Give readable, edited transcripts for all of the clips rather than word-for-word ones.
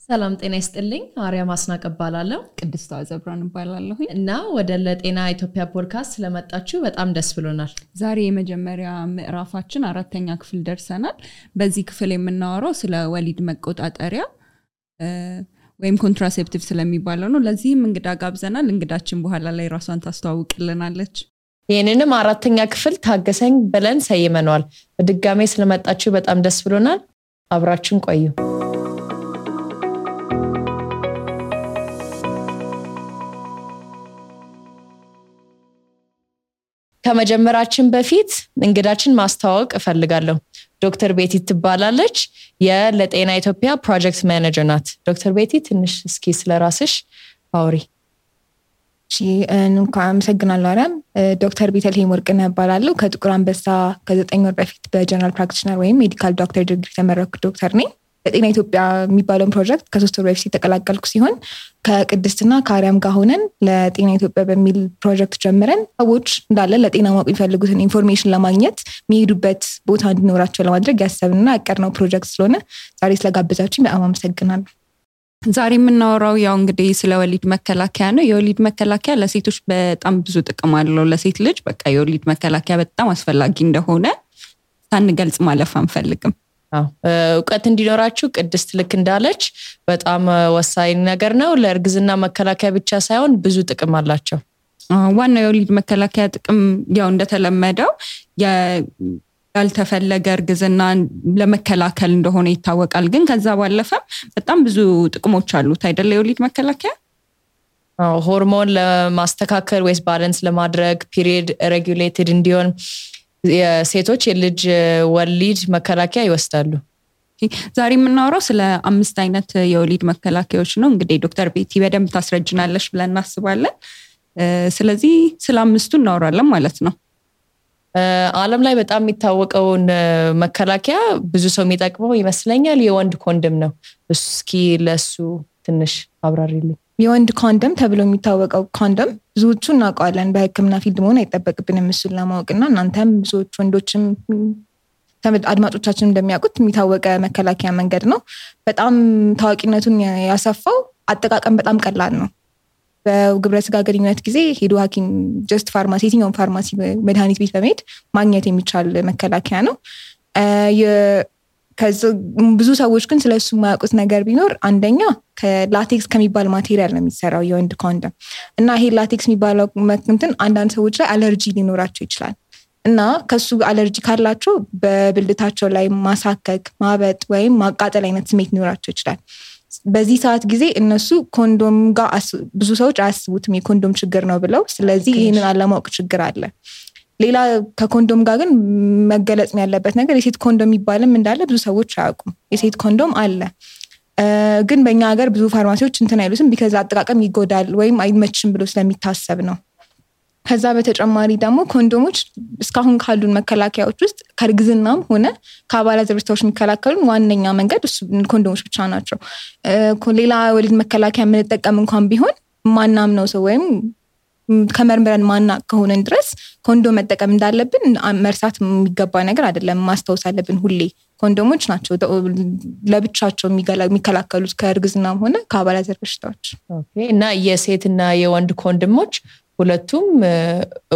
ሰላም ጤና ይስጥልኝ አርያም አስናቀ እባላለሁ ቅድስት አዘብራን እባላለሁ እና ወደ ለጤና ኢትዮጵያ ፖድካስት ስለመጣችሁ በጣም ደስ ብሎናል። ዛሬ የመጀመሪያ ምዕራፋችን አራተኛ ክፍል ደርሰናል። በዚህ ክፍል የምናወራው ስለ ወሊድ መቆጣጠሪያ ወይም ኮንትራሴፕቲቭ ስለሚባለው ነው። ለዚህም እንግዳ ጋብዘናል። እንግዳችን በኋላ ላይ ራሷን ታስተዋውቅልናለች። ይሄንንም አራተኛ ክፍል ታገሰኝ ብለን ሰይመናል። በድጋሜ ስለመጣችሁ በጣም ደስ ብሎናል። አብራችሁን ቆዩ። ከመጀመራችን በፊት እንግዳችን ማስተዋወቅ እፈልጋለሁ። ዶክተር ቤቲ ትባላለች። የለጤና ኢትዮጵያ ፕሮጀክት ማኔጀር ናት። ዶክተር ቤቲ ትንሽ እስኪ ስለራስሽ አውሪ። እንኳን አመሰግናለሁ አርያም። ዶክተር ቤተልሔም ወርቅነህ እባላለሁ። ከጥቁር አንበሳ ከ9 ወር በፊት በጀነራል ፕራክቲሽነር ወይም ሜዲካል ዶክተር ዲግሪ ተመረኩ ዶክተር ነኝ። ለጤና ኢትዮጵያ የሚባለው ፕሮጀክት ከ3 ወር በፊት ተቀላቀልኩ ሲሆን ከቅድስትና ከአርያም ጋር ሆነን ለጤና ኢትዮጵያ በሚል ፕሮጀክት ጀምረን ሰዎች እንዳለ ለጤና ማወቅ የሚፈልጉትን ኢንፎርሜሽን ለማግኘት የሚሄዱበት ቦታ እንዲኖራቸው ለማድረግ ያሰብንና ያቀድነው ፕሮጀክት ስለሆነ ዛሬ ስለጋበዛችሁኝ በጣም አመሰግናለሁ። ዛሬ የምናወራው ያው እንግዲህ ስለ ወሊድ መከላከያ ነው። የወሊድ መከላከያ ለሴቶች በጣም ብዙ ጥቅም አለው። ለሴት ልጅ በቃ የወሊድ መከላከያ በጣም አስፈላጊ እንደሆነ ሳንገልጽ ማለፍ አንፈልግም። እውቀት እንዲኖራችሁ ቅድስት ልክ እንዳለች በጣም ወሳኝ ነገር ነው። ለእርግዝና መከላከያ ብቻ ሳይሆን ብዙ ጥቅም አላቸው። ዋናው የወሊድ መከላከያ ጥቅም ያው እንደተለመደው ያልተፈለገ እርግዝና ለመከላከል እንደሆነ ይታወቃል። ግን ከዛ ባለፈ በጣም ብዙ ጥቅሞች አሉት አይደል? የወሊድ መከላከያ ሆርሞን ለማስተካከል ወይስ ባላንስ ለማድረግ ፒሪየድ ሬጉሌትድ እንዲሆን የሴቶች የልጅ ወሊድ መከላከያ ይወስዳሉ። ዛሬ የምናወራው ስለ 5 አይነት የወሊድ መከላከያዎች ነው። እንግዲህ ዶክተር ቤቲ በደንብ ታስረጅናለሽ ብለን እናስባለን። ስለዚህ ስለ 5ቱ እናወራለን ማለት ነው። ዓለም ላይ በጣም የሚታወቀውን መከላከያ ብዙ ሰው የሚጠቅመው ይመስለኛል የወንድ ኮንዶም ነው። እስኪ ለሱ ትንሽ አብራሪልኝ። የወንድ ኮንዶም ተብሎ የሚታወቀው ኮንዶም ብዙዎቹ እናውቀዋለን። በሕክምና ፊልድ መሆን አይጠበቅብንም እሱን ለማወቅና እናንተም ብዙዎች ወንዶችም አድማጮቻችን እንደሚያውቁት የሚታወቀ መከላከያ መንገድ ነው። በጣም ታዋቂነቱን ያሰፋው አጠቃቀም በጣም ቀላል ነው። በግብረ ስጋ ግንኙነት ጊዜ ሄዶ ሐኪም ጀስት ፋርማሲ የትኛውን ፋርማሲ መድኃኒት ቤት በመሄድ ማግኘት የሚቻል መከላከያ ነው። ብዙ ሰዎች ግን ስለሱ የማያውቁት ነገር ቢኖር አንደኛ ከላቴክስ ከሚባል ማቴሪያል ነው የሚሰራው የወንድ ኮንዶም እና ይሄ ላቴክስ የሚባለው እንትን አንዳንድ ሰዎች ላይ አለርጂ ሊኖራቸው ይችላል እና ከሱ አለርጂ ካላቸው በብልታቸው ላይ ማሳከክ፣ ማበጥ ወይም ማቃጠል አይነት ስሜት ሊኖራቸው ይችላል። በዚህ ሰዓት ጊዜ እነሱ ኮንዶም ጋር ብዙ ሰዎች አያስቡትም የኮንዶም ችግር ነው ብለው። ስለዚህ ይህንን አለማወቅ ችግር አለ። ሌላ ከኮንዶም ጋር ግን መገለጽ ያለበት ነገር የሴት ኮንዶም የሚባልም እንዳለ ብዙ ሰዎች አያውቁም። የሴት ኮንዶም አለ ግን በእኛ ሀገር ብዙ ፋርማሲዎች እንትን አይሉትም ቢካዝ አጠቃቀም ይጎዳል ወይም አይመችም ብሎ ስለሚታሰብ ነው። ከዛ በተጨማሪ ደግሞ ኮንዶሞች እስካሁን ካሉን መከላከያዎች ውስጥ ከእርግዝናም ሆነ ከአባላዘር በሽታዎች የሚከላከሉን ዋነኛ መንገድ ኮንዶሞች ብቻ ናቸው። ሌላ ወሊድ መከላከያ የምንጠቀም እንኳን ቢሆን ማናምነው ሰው ወይም ከመርምረን ማናቅ ከሆነን ድረስ ኮንዶም መጠቀም እንዳለብን መርሳት የሚገባ ነገር አይደለም። ማስታወስ አለብን ሁሌ ኮንዶሞች ናቸው ለብቻቸው የሚከላከሉት ከእርግዝናም ሆነ ከአባላዘር በሽታዎች። እና የሴትና የወንድ ኮንዶሞች ሁለቱም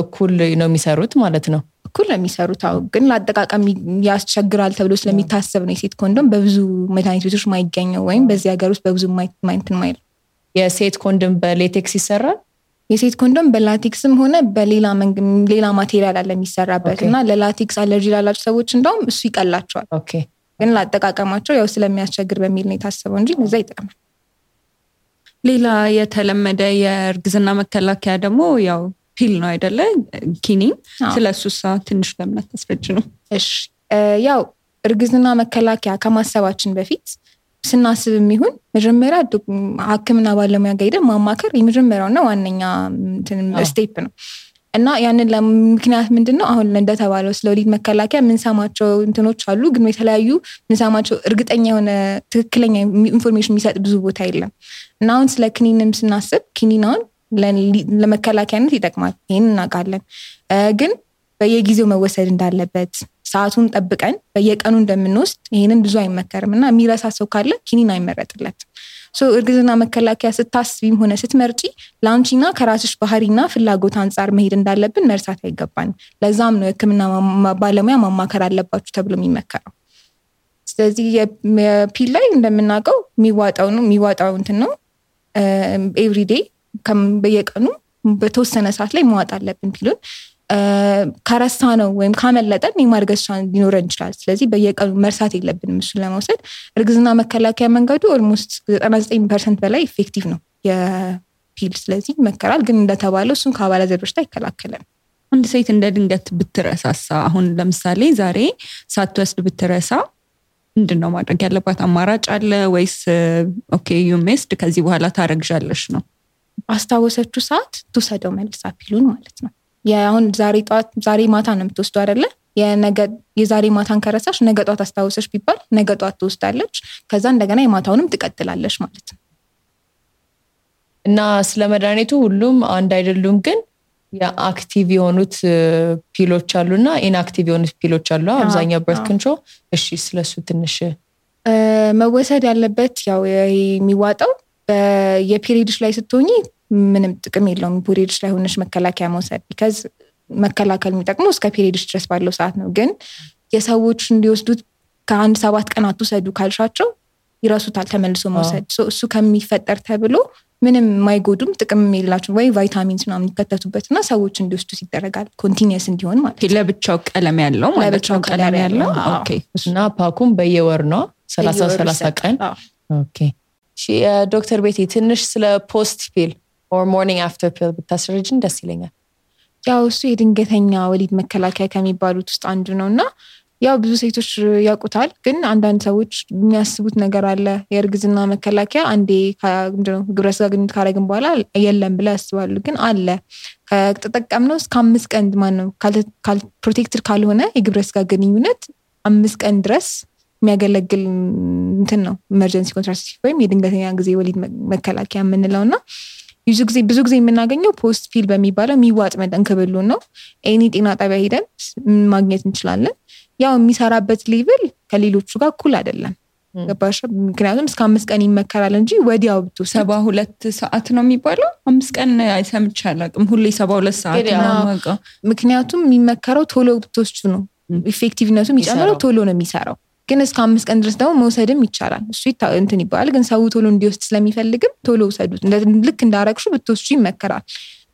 እኩል ነው የሚሰሩት ማለት ነው? እኩል ነው የሚሰሩት። ግን ለአጠቃቀም ያስቸግራል ተብሎ ስለሚታሰብ ነው የሴት ኮንዶም በብዙ መድኃኒት ቤቶች ማይገኘው ወይም በዚህ ሀገር ውስጥ በብዙ ማይንትን ማይል። የሴት ኮንዶም በሌቴክስ ይሰራል? የሴት ኮንዶም በላቴክስም ሆነ በሌላ ማቴሪያል አለ የሚሰራበት እና ለላቴክስ አለርጂ ላላቸው ሰዎች እንደውም እሱ ይቀላቸዋል። ግን ለአጠቃቀማቸው ያው ስለሚያስቸግር በሚል ነው የታሰበው እንጂ እዛ ይጠቅማል። ሌላ የተለመደ የእርግዝና መከላከያ ደግሞ ያው ፒል ነው አይደለ? ኪኒን። ስለሱሳ ትንሽ ለምነት ተስፈጅ ነው። እሺ ያው እርግዝና መከላከያ ከማሰባችን በፊት ስናስብ የሚሆን መጀመሪያ ሐኪምና ባለሙያ ጋር ሄደን ማማከር የመጀመሪያውና ዋነኛ ስቴፕ ነው እና ያንን ለምክንያት ምንድነው አሁን እንደተባለው ስለ ወሊድ መከላከያ የምንሰማቸው እንትኖች አሉ። ግን የተለያዩ የምንሰማቸው እርግጠኛ የሆነ ትክክለኛ ኢንፎርሜሽን የሚሰጥ ብዙ ቦታ የለም እና አሁን ስለ ክኒንም ስናስብ ክኒናውን ለመከላከያነት ይጠቅማል። ይሄን እናውቃለን። ግን በየጊዜው መወሰድ እንዳለበት ሰዓቱን ጠብቀን በየቀኑ እንደምንወስድ ይሄንን ብዙ አይመከርምና የሚረሳ ሰው ካለ ኪኒን አይመረጥለትም። እርግዝና መከላከያ ስታስቢም ሆነ ስትመርጪ ለአንቺና ከራስሽ ባህሪና ፍላጎት አንጻር መሄድ እንዳለብን መርሳት አይገባንም። ለዛም ነው የሕክምና ባለሙያ ማማከር አለባችሁ ተብሎ የሚመከረው። ስለዚህ የፒል ላይ እንደምናውቀው የሚዋጣው እንትን ነው ኤቭሪዴይ በየቀኑ በተወሰነ ሰዓት ላይ መዋጥ አለብን ፒሉን። ከረሳ ነው ወይም ካመለጠን የማርገዝ ቻንስ ሊኖረን ይችላል። ስለዚህ በየቀኑ መርሳት የለብንም እሱን ለመውሰድ። እርግዝና መከላከያ መንገዱ ኦልሞስት 99% በላይ ኢፌክቲቭ ነው የፒል። ስለዚህ ይመከራል። ግን እንደተባለው እሱን ከአባላዘር በሽታ ይከላከላል። አንድ ሴት እንደ ድንገት ብትረሳሳ አሁን ለምሳሌ ዛሬ ሳትወስድ ብትረሳ ምንድነው ማድረግ ያለባት? አማራጭ አለ ወይስ ኦኬ ዩ ሚስድ ከዚህ በኋላ ታረግዣለሽ ነው? አስታወሰችው ሰዓት ትውሰደው መልሳ ፒሉን ማለት ነው። አሁን ዛሬ ማታ ነው የምትወስደው አይደለ? የዛሬ ማታን ከረሳሽ ነገ ጧት አስታወሰሽ ቢባል ነገ ጧት ትወስዳለች። ከዛ እንደገና የማታውንም ትቀጥላለች ማለት ነው። እና ስለ መድኃኒቱ ሁሉም አንድ አይደሉም፣ ግን የአክቲቭ የሆኑት ፒሎች አሉና ኢንአክቲቭ የሆኑት ፒሎች አሉ። አብዛኛው በርት ኮንትሮል። እሺ ስለሱ ትንሽ መወሰድ ያለበት ያው የሚዋጣው የፔሪድሽ ላይ ስትሆኚ ምንም ጥቅም የለውም ፔሪድሽ ላይ ሆነሽ መከላከያ መውሰድ። ቢካዝ መከላከል የሚጠቅመው እስከ ፔሪድሽ ድረስ ባለው ሰዓት ነው። ግን የሰዎች እንዲወስዱት ከአንድ 7 ቀን አትውሰዱ ካልሻቸው ይረሱታል ተመልሶ መውሰድ። እሱ ከሚፈጠር ተብሎ ምንም የማይጎዱም ጥቅም የላቸው ወይ ቫይታሚንስ ምናምን ይከተቱበትና ሰዎች እንዲወስዱት ይደረጋል። ኮንቲኒየስ እንዲሆን ማለት ነው። ለብቻው ቀለም ያለው ማለት ነው። ቀለም ያለው ኦኬ። እና ፓኩም በየወር ነው 30 ቀን። ኦኬ። ዶክተር ቤቲ ትንሽ ስለ ፖስት ፒል or morning after pill ብታስረጅን ደስ ይለኛል። ያው እሱ የድንገተኛ ወሊድ መከላከያ ከሚባሉት ውስጥ አንዱ ነውና ያው ብዙ ሴቶች ያውቁታል። ግን አንዳንድ ሰዎች የሚያስቡት ነገር አለ። የእርግዝና መከላከያ አንዴ ግብረ ስጋ ግንኙነት ካረግን በኋላ የለም ብለው ያስባሉ። ግን አለ። ከተጠቀምነው እስከ 5 ቀን ማነው ፕሮቴክትድ ካልሆነ የግብረ ስጋ ግንኙነት 5 ቀን ድረስ የሚያገለግል እንትን ነው ኢመርጀንሲ ኮንትራሴፕቲቭ ወይም የድንገተኛ ጊዜ ወሊድ መከላከያ የምንለውና ብዙ ጊዜ የምናገኘው ፖስት ፒል በሚባለው የሚዋጥ መጠን ክብሉ ነው። ኤኒ ጤና ጣቢያ ሄደን ማግኘት እንችላለን። ያው የሚሰራበት ሌቭል ከሌሎቹ ጋር እኩል አይደለም። ገባሽ? ምክንያቱም እስከ 5 ቀን ይመከራል እንጂ ወዲያው ብትወስድ 72 ሰዓት ነው የሚባለው። 5 ቀን አይሰምች አላውቅም። ሁሌ 72 ሰዓት ነው። ምክንያቱም የሚመከረው ቶሎ ብትወስዱ ነው። ኢፌክቲቭነቱ የሚጨምረው ቶሎ ነው የሚሰራው። ግን እስከ 5 ቀን ድረስ ደግሞ መውሰድም ይቻላል። እሱ እንትን ይባላል። ግን ሰው ቶሎ እንዲወስድ ስለሚፈልግም ቶሎ ውሰዱት። ልክ እንዳረግሹ ብትወስዱ ይመከራል።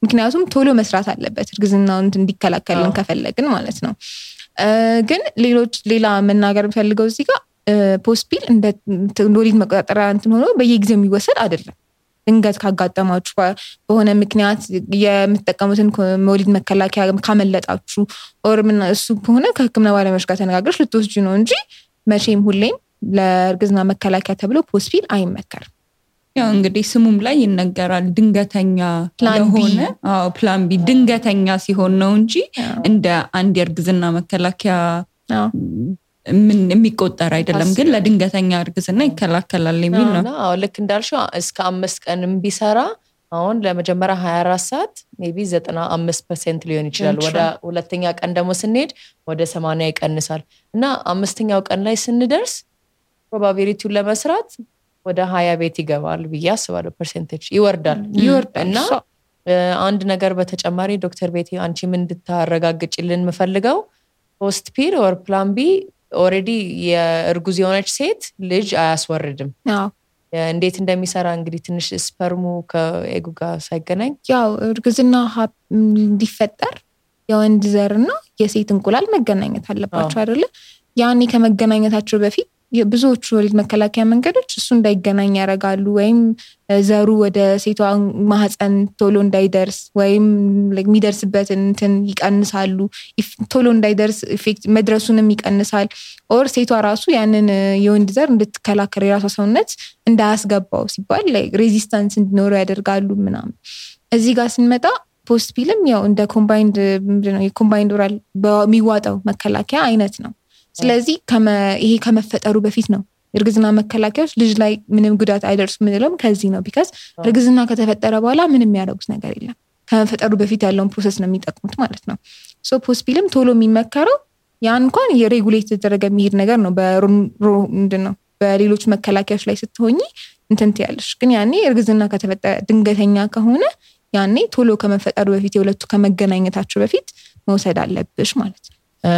ምክንያቱም ቶሎ መስራት አለበት እርግዝናውን እንዲከላከልን ከፈለግን ማለት ነው። ግን ሌላ መናገር ፈልገው እዚህ ጋር ፖስት ፒል እንደ ወሊድ መቆጣጠሪያ እንትን ሆኖ በየጊዜው የሚወሰድ አይደለም። ድንገት ካጋጠማችሁ በሆነ ምክንያት የምትጠቀሙትን ወሊድ መከላከያ ካመለጣችሁ ኦር ምን እሱ ከሆነ ከሕክምና ባለሙያዎች ጋር ተነጋግረሽ ልትወስጂ ነው እንጂ መቼም ሁሌም ለእርግዝና መከላከያ ተብሎ ፖስት ፒል አይመከርም። ያው እንግዲህ ስሙም ላይ ይነገራል ድንገተኛ ለሆነ ፕላን ቢ ድንገተኛ ሲሆን ነው እንጂ እንደ አንድ የእርግዝና መከላከያ ምን የሚቆጠር አይደለም። ግን ለድንገተኛ እርግዝና ይከላከላል የሚል ነው። አዎ ልክ እንዳልሽው እስከ 5 ቀንም ቢሰራ አሁን ለመጀመሪያ 24 ሰዓት ሜቢ 95% ሊሆን ይችላል። ወደ ሁለተኛ ቀን ደግሞ ስንሄድ ወደ 80 ይቀንሳል እና 5ኛው ቀን ላይ ስንደርስ ፕሮባቢሊቲውን ለመስራት ወደ 20 ቤት ይገባል ብዬ አስባለሁ። ፐርሰንቴጅ ይወርዳል እና አንድ ነገር በተጨማሪ ዶክተር ቤቲ አንቺ ምን እንድታረጋግጭልን የምፈልገው ፖስት ፒል ኦር ፕላን ቢ ኦሬዲ የእርጉዝ የሆነች ሴት ልጅ አያስወርድም። እንዴት እንደሚሰራ እንግዲህ ትንሽ ስፐርሙ ከኤጉ ጋር ሳይገናኝ ያው እርግዝና እንዲፈጠር የወንድ ዘርና የሴት እንቁላል መገናኘት አለባቸው አይደለ? ያኔ ከመገናኘታቸው በፊት ብዙዎቹ ወሊድ መከላከያ መንገዶች እሱ እንዳይገናኝ ያደርጋሉ። ወይም ዘሩ ወደ ሴቷ ማህፀን ቶሎ እንዳይደርስ ወይም የሚደርስበትን እንትን ይቀንሳሉ። ቶሎ እንዳይደርስ ኢፌክት መድረሱንም ይቀንሳል። ኦር ሴቷ ራሱ ያንን የወንድ ዘር እንድትከላከል የራሷ ሰውነት እንዳያስገባው ሲባል ሬዚስታንስ እንዲኖረው ያደርጋሉ ምናምን። እዚህ ጋር ስንመጣ ፖስት ፒልም ያው እንደ ኮምባይንድ ኦራል በሚዋጣው መከላከያ አይነት ነው። ስለዚህ ይሄ ከመፈጠሩ በፊት ነው እርግዝና መከላከያዎች ልጅ ላይ ምንም ጉዳት አይደርሱ ምንለውም ከዚህ ነው። ቢካዝ እርግዝና ከተፈጠረ በኋላ ምንም ያደርጉት ነገር የለም። ከመፈጠሩ በፊት ያለውን ፕሮሰስ ነው የሚጠቅሙት ማለት ነው። ሶ ፖስት ፒልም ቶሎ የሚመከረው ያን እንኳን የሬጉሌት የተደረገ የሚሄድ ነገር ነው። ምንድነው በሌሎች መከላከያዎች ላይ ስትሆኚ እንትን ትያለሽ። ግን ያኔ እርግዝና ከተፈጠረ ድንገተኛ ከሆነ ያኔ ቶሎ ከመፈጠሩ በፊት የሁለቱ ከመገናኘታቸው በፊት መውሰድ አለብሽ ማለት ነው።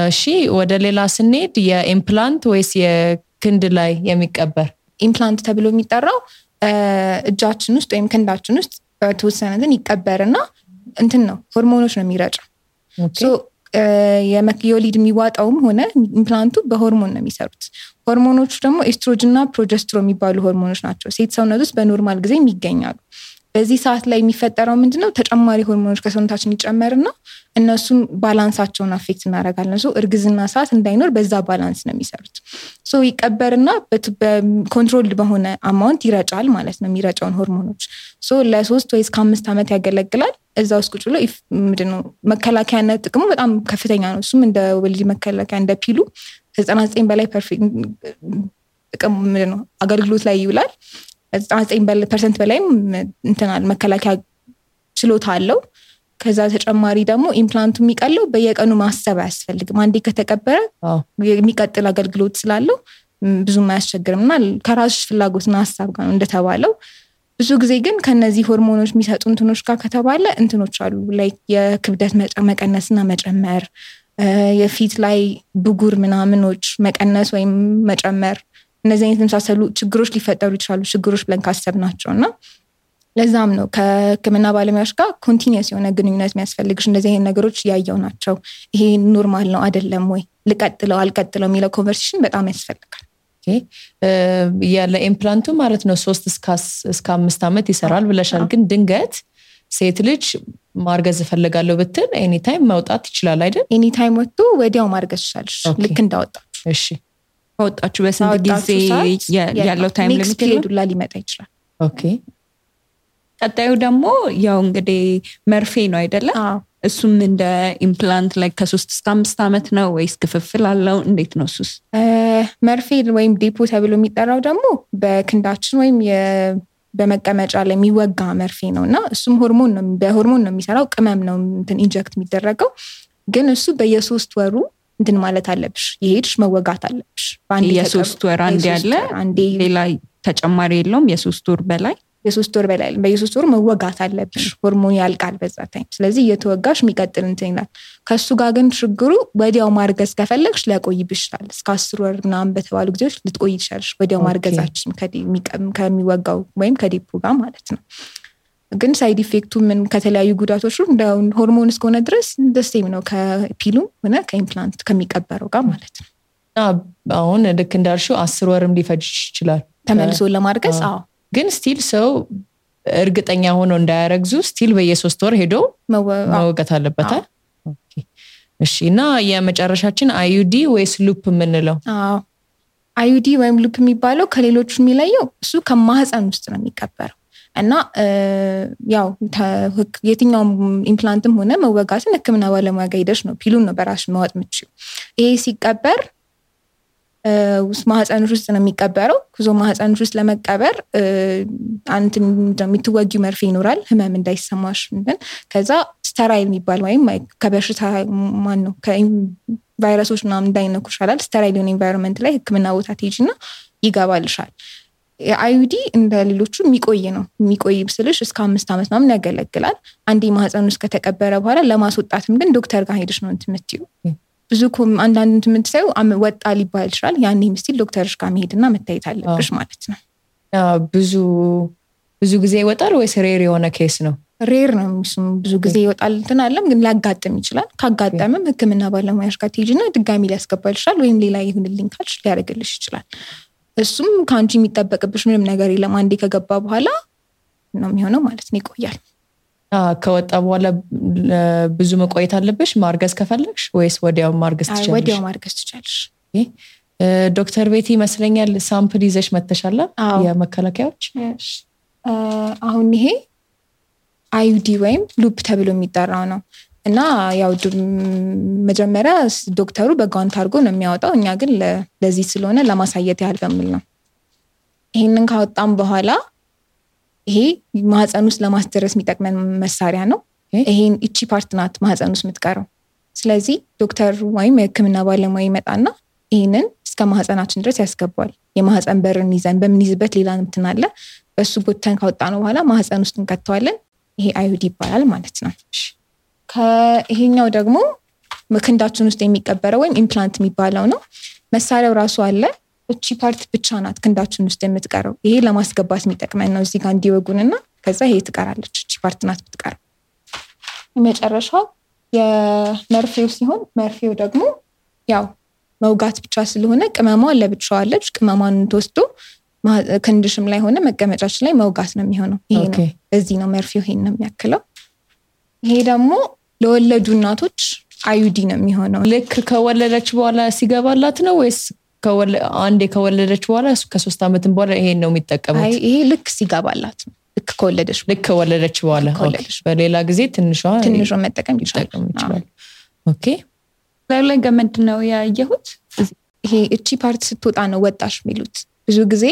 እሺ ወደ ሌላ ስንሄድ የኢምፕላንት ወይስ የክንድ ላይ የሚቀበር? ኢምፕላንት ተብሎ የሚጠራው እጃችን ውስጥ ወይም ክንዳችን ውስጥ በተወሰነትን ይቀበርና እንትን ነው ሆርሞኖች ነው የሚረጨው። የወሊድ የሚዋጣውም ሆነ ኢምፕላንቱ በሆርሞን ነው የሚሰሩት። ሆርሞኖቹ ደግሞ ኤስትሮጅን እና ፕሮጀስትሮ የሚባሉ ሆርሞኖች ናቸው። ሴት ሰውነት ውስጥ በኖርማል ጊዜ የሚገኛሉ። በዚህ ሰዓት ላይ የሚፈጠረው ምንድነው ተጨማሪ ሆርሞኖች ከሰውነታችን ይጨመርና እነሱን ባላንሳቸውን አፌክት እናደርጋለን። እርግዝና ሰዓት እንዳይኖር በዛ ባላንስ ነው የሚሰሩት። ይቀበርና በኮንትሮልድ በሆነ አማውንት ይረጫል ማለት ነው የሚረጫውን ሆርሞኖች። ለ3 ወይ እስከ 5 ዓመት ያገለግላል። እዛ ውስጥ ቁጭ ብሎ ምንድነው መከላከያነት ጥቅሙ በጣም ከፍተኛ ነው። እሱም እንደ ወሊድ መከላከያ እንደ ፒሉ ከ99 በላይ ፐርፌክት ጥቅም ምንድነው አገልግሎት ላይ ይውላል። 99% በላይም እንትናል መከላከያ ችሎታ አለው። ከዛ ተጨማሪ ደግሞ ኢምፕላንቱ የሚቀለው በየቀኑ ማሰብ አያስፈልግም። አንዴ ከተቀበረ የሚቀጥል አገልግሎት ስላለው ብዙም አያስቸግርምና ከራስሽ ፍላጎትና ሐሳብ ጋር ነው እንደተባለው። ብዙ ጊዜ ግን ከነዚህ ሆርሞኖች የሚሰጡ እንትኖች ጋር ከተባለ እንትኖች አሉ ላይክ የክብደት መቀነስና መጨመር፣ የፊት ላይ ብጉር ምናምኖች መቀነስ ወይም መጨመር፣ እነዚህ አይነት የመሳሰሉ ችግሮች ሊፈጠሩ ይችላሉ። ችግሮች ብለን ካሰብናቸውና ለዛም ነው ከህክምና ባለሙያዎች ጋር ኮንቲኒየስ የሆነ ግንኙነት የሚያስፈልግሽ። እንደዚህ አይነት ነገሮች ያየው ናቸው። ይሄ ኖርማል ነው አይደለም ወይ ልቀጥለው አልቀጥለው የሚለው ኮንቨርሴሽን በጣም ያስፈልጋል። ለኢምፕላንቱ ማለት ነው 3 እስከ 5 ዓመት ይሰራል ብለሻል። ግን ድንገት ሴት ልጅ ማርገዝ እፈልጋለሁ ብትል ኤኒ ታይም መውጣት ይችላል አይደል? ኤኒ ታይም ወጥቶ ወዲያው ማርገዝ ይችላል ልክ እንዳወጣችሁ። እሺ ወጣችሁ በስንት ጊዜ ያለው ታይም ሊሚት ዱላ ሊመጣ ይችላል። ኦኬ ቀጣዩ ደግሞ ያው እንግዲህ መርፌ ነው አይደለ? እሱም እንደ ኢምፕላንት ላይ ከ3 እስከ 5 ዓመት ነው ወይስ ክፍፍል አለው? እንዴት ነው እሱስ? መርፌ ወይም ዴፖ ተብሎ የሚጠራው ደግሞ በክንዳችን ወይም በመቀመጫ ላይ የሚወጋ መርፌ ነውና እሱም በሆርሞን ነው የሚሰራው። ቅመም ነው እንትን ኢንጀክት የሚደረገው። ግን እሱ በየ3 ወሩ እንትን ማለት አለብሽ፣ ይሄድሽ መወጋት አለብሽ። የ3 ወር አንዴ ያለ ሌላ ተጨማሪ የለውም? የ3 ወር በላይ በየ3 ወሩ መወጋት አለብሽ። ሆርሞን ያልቃል በዛ ታይም። ስለዚህ እየተወጋሽ የሚቀጥል እንትን ይላል። ከሱ ጋር ግን ችግሩ ወዲያው ማርገዝ ከፈለግሽ ሊያቆይብሽ ይችላል። እስከ 10 ወር ምናምን በተባሉ ጊዜዎች ልትቆይ ይችላልሽ ወዲያው ማርገዛችን ከሚወጋው ወይም ከዴፖ ጋር ማለት ነው። ግን ሳይድ ኢፌክቱ ምን ከተለያዩ ጉዳቶች እንደ ሆርሞን እስከሆነ ድረስ ደስቴም ነው ከፒሉ ሆነ ከኢምፕላንት ከሚቀበረው ጋር ማለት ነው። አሁን ልክ እንዳልሽው 10 ወርም ሊፈጅ ይችላል ተመልሶ ለማርገዝ። ግን ስቲል ሰው እርግጠኛ ሆኖ እንዳያረግዙ ስቲል በየ3 ወር ሄዶ መወጋት አለበት። እሺ እና የመጨረሻችን አዩዲ ወይስ ሉፕ የምንለው? አዩዲ ወይም ሉፕ የሚባለው ከሌሎቹ የሚለየው እሱ ከማህፀን ውስጥ ነው የሚቀበረው እና ያው የትኛውም ኢምፕላንትም ሆነ መወጋትን ህክምና ባለሙያ ጋር ሄደሽ ነው ፒሉን ነው በራስሽ ማወጥ የምትችይው። ይሄ ሲቀበር ማህፀንሽ ውስጥ ነው የሚቀበረው። ማህፀንሽ ውስጥ ለመቀበር አንተ የምትወጊው መርፌ ይኖራል ህመም እንዳይሰማሽ። ከዛ ስተራይል የሚባል ወይም ከበሽታ ነው ከቫይረሶች ምናምን እንዳይነኩሽ ይላል። ስተራይል የሆነ ኢንቫይሮንመንት ላይ ህክምና ቦታ ትሄጂና ይገባልሻል። የአዩዲ እንደ ሌሎቹ የሚቆይ ነው። የሚቆይ ብስልሽ እስከ 5 ዓመት ምናምን ያገለግላል። አንዴ ማህፀን ውስጥ ከተቀበረ በኋላ ለማስወጣትም ግን ዶክተር ጋር ሄደሽ ነው እንትምትዩ። ብዙ አንዳንድ እንትምትሳዩ ወጣ ሊባል ይችላል። ያኔ ምስል ዶክተርሽ ጋር መሄድና መታየት አለብሽ ማለት ነው። ብዙ ጊዜ ይወጣል ወይስ ሬር የሆነ ኬስ ነው? ሬር ነው። ብዙ ጊዜ ይወጣል እንትን አለም ግን ሊያጋጥም ይችላል። ካጋጠመም ህክምና ባለሙያሽ ጋር ትሄጂና ድጋሚ ሊያስገባልሻል ወይም ሌላ ይሁንልኝ ካልሽ ሊያደርግልሽ ይችላል። እሱም ከአንቺ የሚጠበቅብሽ ምንም ነገር የለም። አንዴ ከገባ በኋላ ነው የሚሆነው ማለት ነው። ይቆያል። ከወጣ በኋላ ብዙ መቆየት አለብሽ ማርገዝ ከፈለግሽ ወይስ ወዲያው ማርገዝ ትችላለሽ? ወዲያው ማርገዝ ትችላለሽ። ዶክተር ቤቲ ይመስለኛል ሳምፕል ይዘሽ መተሻላ የመከላከያዎች። አሁን ይሄ አዩዲ ወይም ሉፕ ተብሎ የሚጠራው ነው እና ያው መጀመሪያ ዶክተሩ በጓንት አድርጎ ነው የሚያወጣው። እኛ ግን ለዚህ ስለሆነ ለማሳየት ያህል በሚል ነው። ይሄንን ካወጣም በኋላ ይሄ ማህፀን ውስጥ ለማስደረስ የሚጠቅመን መሳሪያ ነው። ይሄን እቺ ፓርት ናት ማህፀን ውስጥ የምትቀረው። ስለዚህ ዶክተር ወይም የህክምና ባለሙያ ይመጣና ይሄንን እስከ ማህፀናችን ድረስ ያስገባል። የማህፀን በርን ይዘን በምንይዝበት ሌላ እንትን አለ። በሱ ጎተን ካወጣነው በኋላ ማህፀን ውስጥ እንከተዋለን። ይሄ አዩዲ ይባላል ማለት ነው። ከይሄኛው ደግሞ ክንዳችን ውስጥ የሚቀበረው ወይም ኢምፕላንት የሚባለው ነው። መሳሪያው ራሱ አለ። እቺ ፓርት ብቻ ናት ክንዳችን ውስጥ የምትቀረው። ይሄ ለማስገባት የሚጠቅመን ነው። እዚህ ጋር እንዲወጉንና ከዛ ይሄ ትቀራለች። እቺ ፓርት ናት የምትቀረው። የመጨረሻው የመርፌው ሲሆን መርፌው ደግሞ ያው መውጋት ብቻ ስለሆነ ቅመሟ ለብቻዋ አለች። ቅመሟን ተወስዶ ክንድሽም ላይ ሆነ መቀመጫችን ላይ መውጋት ነው የሚሆነው። ይሄ ነው በዚህ ነው መርፌው ይሄን ነው የሚያክለው። ይሄ ደግሞ ለወለዱ እናቶች አዩዲ ነው የሚሆነው። ልክ ከወለደች በኋላ ሲገባላት ነው ወይስ አንዴ ከወለደች በኋላ ከ3 አመትም በኋላ ይሄን ነው የሚጠቀሙት? አይ ይሄ ልክ ሲገባላት ነው። ልክ ከወለደች በኋላ በሌላ ጊዜ ትንሿ መጠቀም ይችላል። ኦኬ ላይ ገመድ ነው ያየሁት። ይሄ እቺ ፓርት ስትወጣ ነው ወጣሽ የሚሉት። ብዙ ጊዜ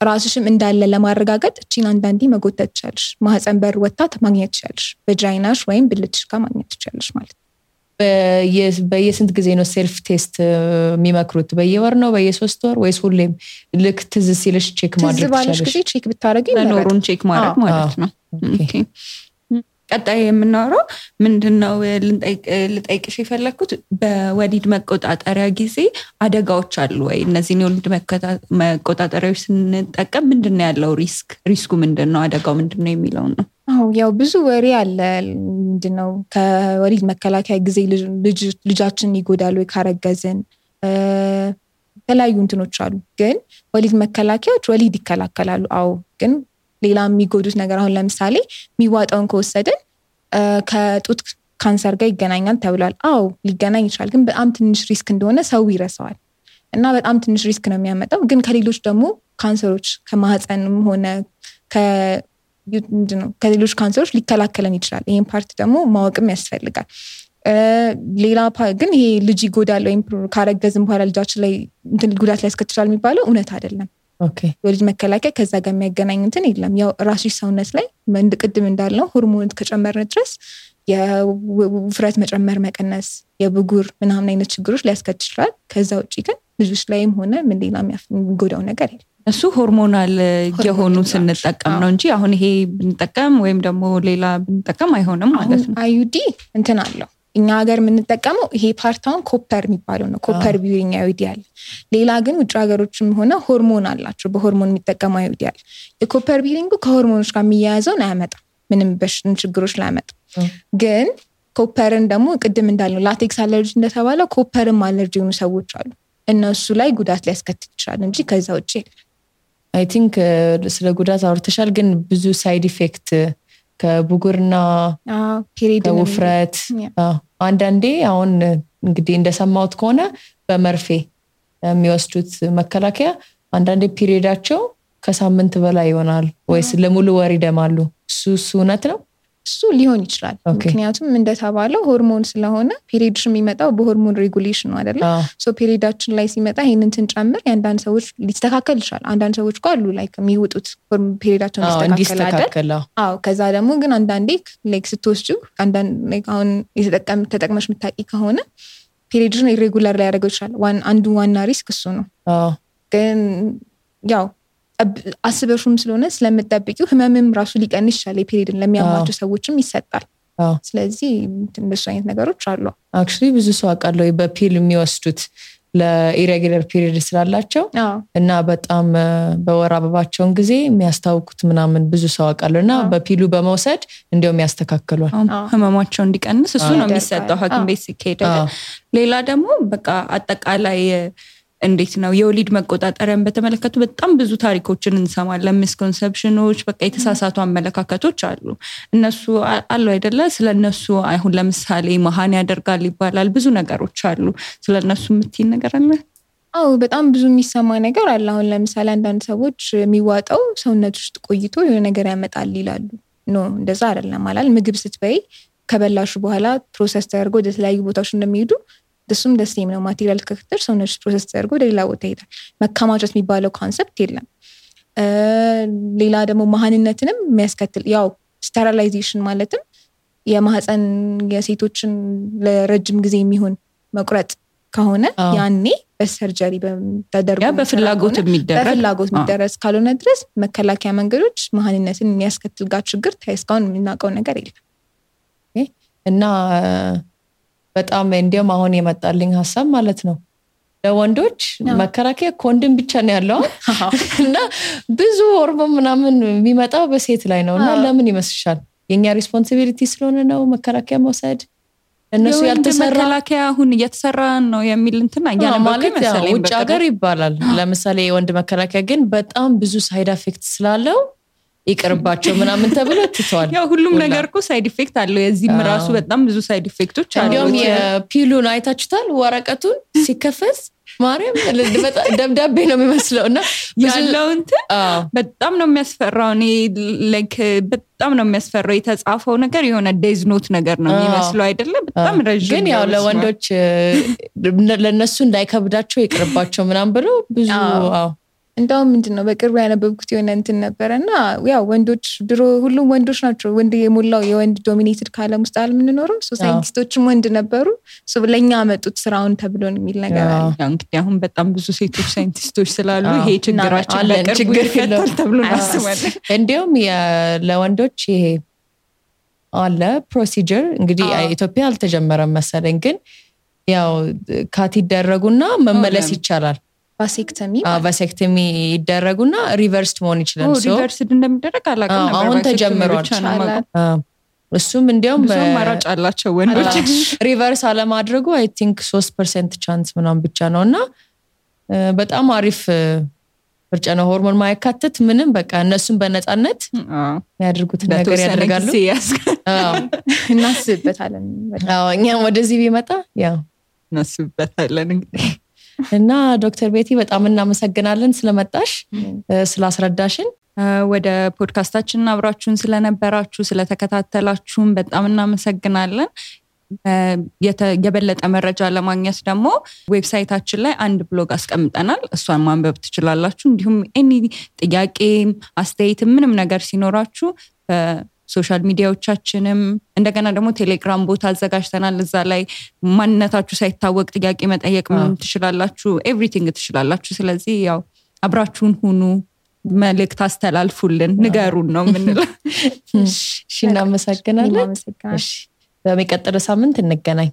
ራስሽም እንዳለ ለማረጋገጥ እቺን አንዳንዴ መጎተት ትችላለሽ። ማህፀን በር ወጣት ማግኘት ትችላለሽ። በጃይናሽ ወይም ብልትሽ ጋር ማግኘት ትችላለሽ ማለት ነው። በየስንት ጊዜ ነው ሴልፍ ቴስት የሚመክሩት? በየወር ነው በየ3 ወር ወይስ ሁሌም ልክ ትዝ ሲልሽ ቼክ ማድረግ ትችላለሽ? ትዝ ባለሽ ጊዜ ቼክ ብታረጊ ለኖሩን ቼክ ማድረግ ማለት ነው። ኦኬ ቀጣይ የምናወራው ምንድነው ልጠይቅሽ የፈለኩት በወሊድ መቆጣጠሪያ ጊዜ አደጋዎች አሉ ወይ? እነዚህን የወሊድ መቆጣጠሪያዎች ስንጠቀም ምንድነው ያለው ሪስኩ ምንድነው? አደጋው ምንድነው የሚለው ነው። ያው ብዙ ወሬ አለ። ምንድነው ከወሊድ መከላከያ ጊዜ ልጃችን ይጎዳሉ ወይ ካረገዝን የተለያዩ እንትኖች አሉ። ግን ወሊድ መከላከያዎች ወሊድ ይከላከላሉ። ግን ሌላ የሚጎዱት ነገር አሁን ለምሳሌ የሚዋጣውን ከወሰድን ከጡት ካንሰር ጋር ይገናኛል ተብሏል። ሊገናኝ ይችላል። ግን በጣም ትንሽ ሪስክ እንደሆነ ሰው ይረሳዋል እና በጣም ትንሽ ሪስክ ነው የሚያመጣው። ግን ከሌሎች ደግሞ ካንሰሮች ከማህፀንም ሆነ ከሌሎች ካንሰሮች ሊከላከለን ይችላል። ይሄን ፓርት ደግሞ ማወቅም ያስፈልጋል። ሌላ ግን ይሄ ልጅ ይጎዳል ወይም ካረገዝን በኋላ ልጃችን ላይ ጉዳት ሊያስከትላል የሚባለው እውነት አይደለም። የወሊድ መከላከያ ከዛ ጋር የሚያገናኝ እንትን የለም። ያው ራስሽ ሰውነት ላይ ቅድም እንዳልነው ሆርሞን ከጨመርን ድረስ የውፍረት መጨመር መቀነስ፣ የብጉር ምናምን አይነት ችግሮች ሊያስከትል ይችላል። ከዛ ውጪ ግን ልጆች ላይም ሆነ ምን ሌላ የሚጎዳው ነገር የለም። እሱ ሆርሞናል የሆኑ ስንጠቀም ነው እንጂ አሁን ይሄ ብንጠቀም ወይም ደግሞ ሌላ ብንጠቀም አይሆንም ማለት ነው። አዩዲ እንትን አለው። እኛ ሀገር የምንጠቀመው ይሄ ፓርታውን ኮፐር የሚባለው ነው። ኮፐር ቢዩሪንግ አዩዲ አለ። ሌላ ግን ውጭ ሀገሮችም ሆነ ሆርሞን አላቸው። በሆርሞን የሚጠቀሙ አዩዲ አለ። የኮፐር ቢዩሪንጉ ከሆርሞኖች ጋር የሚያያዘውን አያመጣም። ምንም ችግሮች ላያመጣም። ግን ኮፐርን ደግሞ ቅድም እንዳልነው ላቴክስ አለርጂ እንደተባለው ኮፐርም አለርጂ የሆኑ ሰዎች አሉ። እነሱ ላይ ጉዳት ሊያስከትል ይችላል እንጂ ከዛ ውጭ አይ ቲንክ ስለ ጉዳት አውርተሻል። ግን ብዙ ሳይድ ኢፌክት ከብጉርና ከውፍረት አንዳንዴ አሁን እንግዲህ እንደሰማሁት ከሆነ በመርፌ የሚወስዱት መከላከያ አንዳንዴ ፒሪዮዳቸው ከሳምንት በላይ ይሆናል ወይስ ለሙሉ ወር ይደማሉ? እሱ እውነት ነው? እሱ ሊሆን ይችላል። ምክንያቱም እንደተባለው ሆርሞን ስለሆነ ፒሪዮድሽ የሚመጣው በሆርሞን ሬጉሌሽን ነው አይደለ? ፒሪዮዳችን ላይ ሲመጣ ይሄንን ትንጨምር የአንዳንድ ሰዎች ሊስተካከል ይችላል። አንዳንድ ሰዎች ጋር አሉ ላይክ የሚወጡት ፒሪዮዳቸውን ሊስተካከል ከዛ ደግሞ ግን አንዳንዴ ላይክ ስትወስጂው አንዳንድ አሁን ተጠቅመሽ የምታውቂ ከሆነ ፒሪዮድሽን ኢሬጉላር ላይ ያደርገው ይችላል። አንዱ ዋና ሪስክ እሱ ነው። ግን ያው አስበሽም ስለሆነ ስለምትጠብቂው ህመምም ራሱ ሊቀንስ ይችላል። የፔሪድን ለሚያማቸው ሰዎችም ይሰጣል። ስለዚህ እንደሱ አይነት ነገሮች አሉ። አክቹሊ ብዙ ሰው አውቃለሁ በፒል የሚወስዱት ለኢሬጉላር ፒሪድ ስላላቸው እና በጣም በወር አበባቸውን ጊዜ የሚያስታውቁት ምናምን ብዙ ሰው አውቃለሁ እና በፒሉ በመውሰድ እንዲያውም ያስተካክሏል ህመማቸው እንዲቀንስ። እሱ ነው የሚሰጠው ሐኪም ቤት ሲሄድ። ሌላ ደግሞ በቃ አጠቃላይ እንዴት ነው የወሊድ መቆጣጠሪያን በተመለከቱ በጣም ብዙ ታሪኮችን እንሰማለን። ሚስኮንሰፕሽኖች፣ በቃ የተሳሳቱ አመለካከቶች አሉ። እነሱ አሉ አይደለ? ስለነሱ አሁን ለምሳሌ መሃን ያደርጋል ይባላል። ብዙ ነገሮች አሉ። ስለነሱ የምትይኝ ነገር አለ? በጣም ብዙ የሚሰማ ነገር አለ። አሁን ለምሳሌ አንዳንድ ሰዎች የሚዋጣው ሰውነት ውስጥ ቆይቶ የሆነ ነገር ያመጣል ይላሉ። እንደዛ አይደለም ማለት ምግብ ስትበይ ከበላሹ በኋላ ፕሮሰስ ተደርጎ ወደ ተለያዩ ቦታዎች እንደሚሄዱ እሱም ደስም ነው። ማቴሪያል ከክትር ሰውነች ፕሮሰስ ተደርጎ ወደ ሌላ ቦታ ይሄዳል። መከማቸት የሚባለው ኮንሰፕት የለም። ሌላ ደግሞ መሃንነትንም የሚያስከትል ያው ስቴሪላይዜሽን ማለትም የማህፀን የሴቶችን ለረጅም ጊዜ የሚሆን መቁረጥ ከሆነ ያኔ በሰርጀሪ ተደርጎ በፍላጎት የሚደረስ ካልሆነ ድረስ መከላከያ መንገዶች መሃንነትን የሚያስከትል ጋር ችግር እስካሁን የምናውቀው ነገር የለም። እና በጣም እንዲያውም አሁን የመጣልኝ ሐሳብ ማለት ነው ለወንዶች መከላከያ ኮንዶም ብቻ ነው ያለው እና ብዙ ሆርሞን ምናምን የሚመጣው በሴት ላይ ነውና ለምን ይመስልሻል? የኛ ሪስፖንሲቢሊቲ ስለሆነ ነው መከላከያ መውሰድ እነሱ ያልተሰራ መከላከያ አሁን እየተሰራ ነው የሚል እንትን ማለት ውጭ ሀገር ይባላል። ለምሳሌ የወንድ መከላከያ ግን በጣም ብዙ ሳይድ ኢፌክት ስላለው ይቅርባቸው ምናምን ተብሎ ትተዋል። ያው ሁሉም ነገር እኮ ሳይድ ኢፌክት አለው። የዚህም ራሱ በጣም ብዙ ሳይድ ኢፌክቶች አሉ። እንዲያውም የፒሉን አይታችሁታል? ወረቀቱን ሲከፈስ ማርያም ደብዳቤ ነው የሚመስለውና ያለው እንትን በጣም ነው የሚያስፈራው። እኔ ላይክ በጣም ነው የሚያስፈራው። የተጻፈው ነገር የሆነ ዴዝ ኖት ነገር ነው የሚመስለው አይደለ? በጣም ረጅም ግን ያው ለወንዶች ለነሱ እንዳይከብዳቸው ይቅርባቸው ምናምን ብሎ ብዙ እንደውም ምንድነው በቅርቡ ያነበብኩት የሆነ እንትን ነበርና ያው ወንዶች ድሮ ሁሉም ወንዶች ናቸው ወንድ የሞላው የወንድ ዶሚኔትድ ካለም ውስጥ አልምንኖረው ሳይንቲስቶችም ወንድ ነበሩ ለኛ አመጡት ስራውን ተብሎ የሚል ነገር አለ። ያው እንግዲህ አሁን በጣም ብዙ ሴቶች ሳይንቲስቶች ስላሉ ይሄ ችግራችን በቅርቡ ይፈታል ተብሎ እናስባለን። እንዲያውም ለወንዶች ይሄ አለ ፕሮሲጀር እንግዲህ ኢትዮጵያ አልተጀመረም መሰለኝ ግን ያው ካት ይደረጉና መመለስ ይቻላል። ቫሴክቶሚ ይደረጉና ሪቨርስድ መሆን ይችላል። ሪቨርስድ እንደሚደረግ አላውቅም ነበር። አሁን ተጀምሯል። እሱም እንዲያውም ማራጭ አላቸው ወንዶች ሪቨርስ አለማድረጉ አይ ቲንክ 3% ቻንስ ምናምን ብቻ ነውና በጣም አሪፍ ምርጫ ነው። ሆርሞን ማይካተት ምንም በቃ እነሱም በነፃነት ያድርጉት ነገር ያደርጋሉ። እናስብበታለን። እኛም ወደዚህ ቢመጣ ያው እናስብበታለን እንግዲህ እና ዶክተር ቤቲ በጣም እናመሰግናለን ስለመጣሽ ስላስረዳሽን። ወደ ፖድካስታችን አብራችሁን ስለነበራችሁ ስለተከታተላችሁን በጣም እናመሰግናለን። የበለጠ መረጃ ለማግኘት ደግሞ ዌብሳይታችን ላይ አንድ ብሎግ አስቀምጠናል። እሷን ማንበብ ትችላላችሁ። እንዲሁም ኤኒ ጥያቄ አስተያየት ምንም ነገር ሲኖራችሁ ሶሻል ሚዲያዎቻችንም እንደገና ደግሞ ቴሌግራም ቦታ አዘጋጅተናል። እዛ ላይ ማንነታችሁ ሳይታወቅ ጥያቄ መጠየቅ ትችላላችሁ። ኤቭሪቲንግ ትችላላችሁ። ስለዚህ ያው አብራችሁን ሁኑ፣ መልእክት አስተላልፉልን፣ ንገሩን ነው የምንለው። እሺ እናመሰግናለን። በሚቀጥለው ሳምንት እንገናኝ።